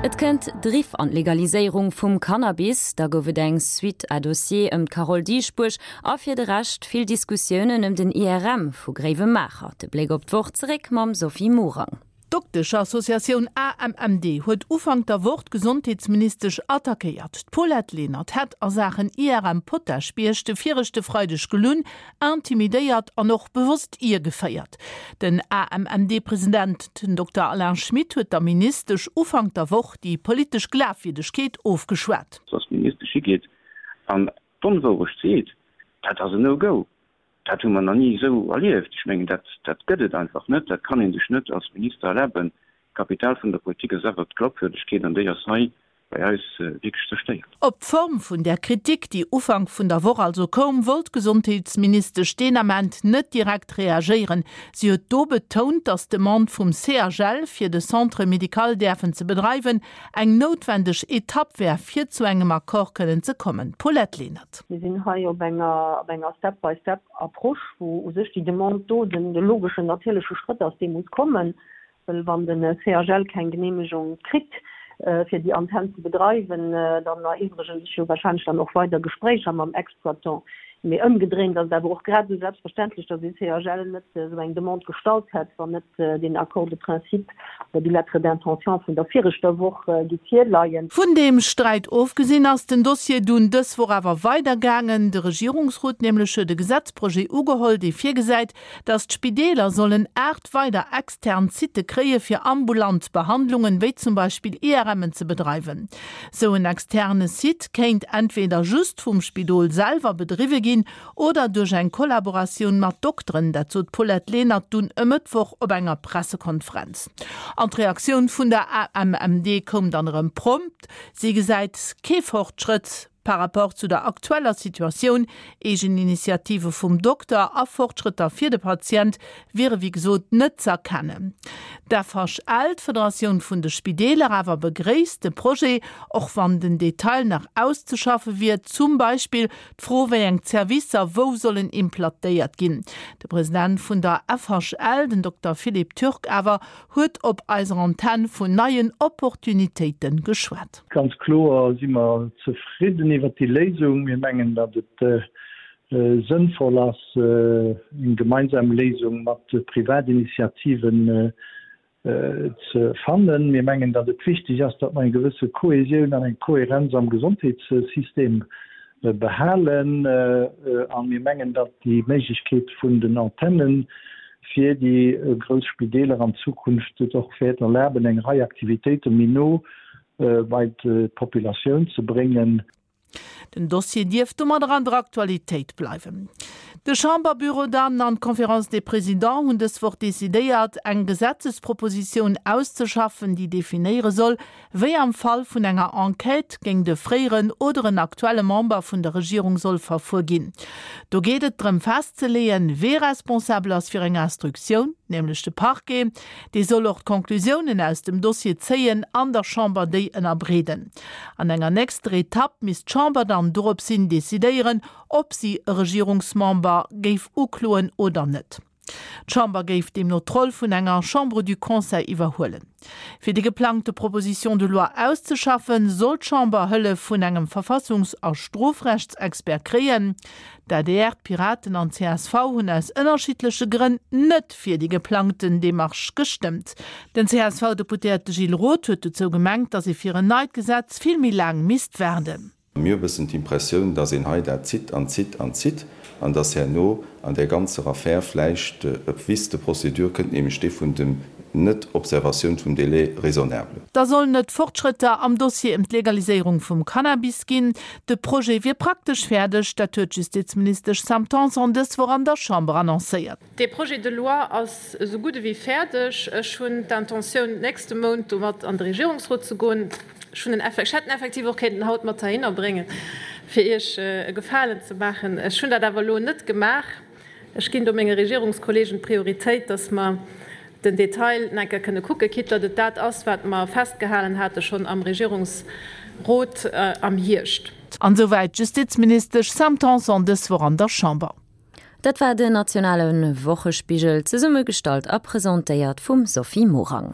Et kënnt Driff an d'Legaliséierung vum Cannabis, da gouf et eng Suite à dossier ëm d'Carole Dieschbourg a fir de Rescht vill Diskussiounen ëm den IRM vu Gréiwemaacher. De Bléck op d'Woch zeréck mam Sophie Morang. D'Dokteschassociatioun AMMD huet Ufank der Woch d'Gesondheetsministesch attackéiert. D'Paulette Lenert hätt a Saachen IRM Potaschbierg de viregte Freideg gelunn, intimidéiert an och bewosst iergeféiert. Den AMMD-President, den Dokter Alain Schmit, huet der Ministesch Ufank der Woch déi politesch Glafwierdegkeet ofgeschwat. Dass d'Ministesch higeet an d'Onwourecht seet, dat ass en No-Go. Dat hu mer nach ni esou erlieft. Ech mengen, dat, dat gëtt et einfach net. Dat kann ee sech net als Minister erlaben. D'Kapital vun der Politik ass awer d'Glaubwürdegkeet an déi ass hei bei eis wierklech zerstéiert. Op d'Form vun där Kritik, déi Ufank vun der Woch also koum, wollt d'Gesondheetsministesch deen Ament net direkt reagéieren. Si huet do betount, datt d'Demande vum CHL, fir de Centre médical däerfen ze bedreiwen, eng noutwendeg Etapp wär, fir zu engem Accord kënnen ze kommen. Paulette Lenert. Mir sinn hei op enger, op enger Step-by-step-Approche, wou u sech déi Demande do den logeschen, natierleche Schrëtt ass, dee muss kommen. Well wann de CHL keng Geneemegung kritt, fir déi Antenn ze bedreiwen, dann eriwwregen sech jo wahrscheinlech dann och weider Gespréicher mam Exploitant. Mee ëmgedréint ass et awer och grad esou selbstverständlech, datt ee CHL net esou eng Demande gestallt hätt, wann net deen Accord de principe oder déi Lettre d'intention vun der viregter Woch giff virleien. Vun deem Sträit ofgesinn ass den Dossier dunn dës Woch awer weidergaangen. De Regierungsrot nämlech huet e Gesetzprojet ugeholl, dee virgesäit, datt d'Spideeler sollen 8 weider extern Sitte kréie fir ambulant Behandlungen, wéi zum Beispill IRMen ze bedreiwen. Sou en externe Site kéint entweder just vum Spidol selwer bedriwwe ginn oder duerch eng Kollaboratioun mat Dokteren, dat sot d'Paulette Lenert dunn e Mëttwoch op enger Pressekonferenz. An d'Reaktioun vun der AMMD koum dann erëm prompt, Si gesäit kee Fortschrëtt par rapport zu der aktueller Situatioun. Eegeninitiative vum Dokter a Fortschrëtter fir de Patient wiere wéi gesot net z'erkennen. D'FHL, d'Federatioun vun de Spideeler, awer begréisst de Projet, och wann den Detail nach auszeschaffe wier, zum Beispill d'Fro wéi eng Zerwisser wou sollen implatéiert ginn. De President vun der FHL, den Dokter Philippe Turk awer, huet op eiser Antenn vun neien Opportunitéite geschwat. Ganz kloer si mer zefridden iwwert déi Léisung. Mir mengen, datt et sënnvoll ass, eng gemeinsam Léisung mat Privatinitiativen ze fannen. Mir mengen, datt et wichteg ass, datt mer eng gewësse Kohesioun an eng Kohärenz am Gesondheetssystem behalen. A mir mengen, datt déi Méiglechkeet vun den Antennen fir déi grouss Spideeler an Zukunft et och wäert erlaben, eng Rei Aktivitéite méi no bei d'Populatioun ze bréngen. Den Dossier dierft domadder an der Aktualitéit bleiwen. De Chamberbüro dann an d'Conférence des Présidents hunn dës Woch decidéiert, eng Gesetzespropositioun auszeschaffen, déi definéiere soll, wéi am Fall vun enger Enquête géint e fréieren oder en aktuelle Member vun der Regierung soll verfuer ginn. Do geet et drëm festzeleeën, wee responsabel ass fir eng Instruktioun, nämlech de Parquet. Dee soll och d'Conclusiounen aus dem Dossier zéien an der Chamber déi ënnerbreeden. An enger nächster Etapp misst d'Chamber dann doropshin decidéieren, ob si e Regierungsmember géif ukloen oder net. D'Chamber géif deemno d'Roll vun enger Chambre du Conseil iwwerhuelen. Fir déi geplangte Proposition de loi auszeschaffen, soll d'Chamber Hëllef vun engem Verfassungs a Strofrechtsexpert kréien. D'adr, d'Piraten an d'CSV hunn aus ënnerschiddleche Grënn net fir déi geplangten Demarche gestëmmt. Den CSV-Deputéierte Gilles Roth huet dozou gemengt, datt ee fir en neit Gesetz vill méi laang misst waarden. Mir hu bëssen d'Impressioun, dass een hei dat zitt an zitt an zitt an dass herno an där ganzer Affär vläicht e Vice de procédure kënnt, nämlech dee vun dem Net-Observatioun vum Délai raisonnable. Da sollen et Fortschrëtter am Dossier ëm d'Legaliséierung vum Cannabis ginn. De Projet wier praktesch fäerdeg, dat huet d'Justizministesch Sam Tanson dës Woch an der Chamber annoncéiert. Dee Projet de loi ass esou gutt ewéi fäerdeg. Ech hunn d'Intentioun, d'nächste Mount domat an de Regierungsrot ze goen. Ech hunn en, ech hätt en effektiv och kéinten haut mat heihinner bréngen, fir Iech e Gefalen ze maachen. Ech hunn dat awer elo net gemaach. Ech ginn do menge Regierungskollegen d'Prioritéit, dass mer den Detail nach eng Kéier kënne kucken, quitte datt et dat ass, wat mer festgehalen hate schonn am Regierungsrot am Hierscht. An esouwäit d'Justizministesch Sam Tanson dës Woch an der Chamber. Dat war den nationale Wochespigel, zesummegestallt a presentéiert vum Sophie Morang.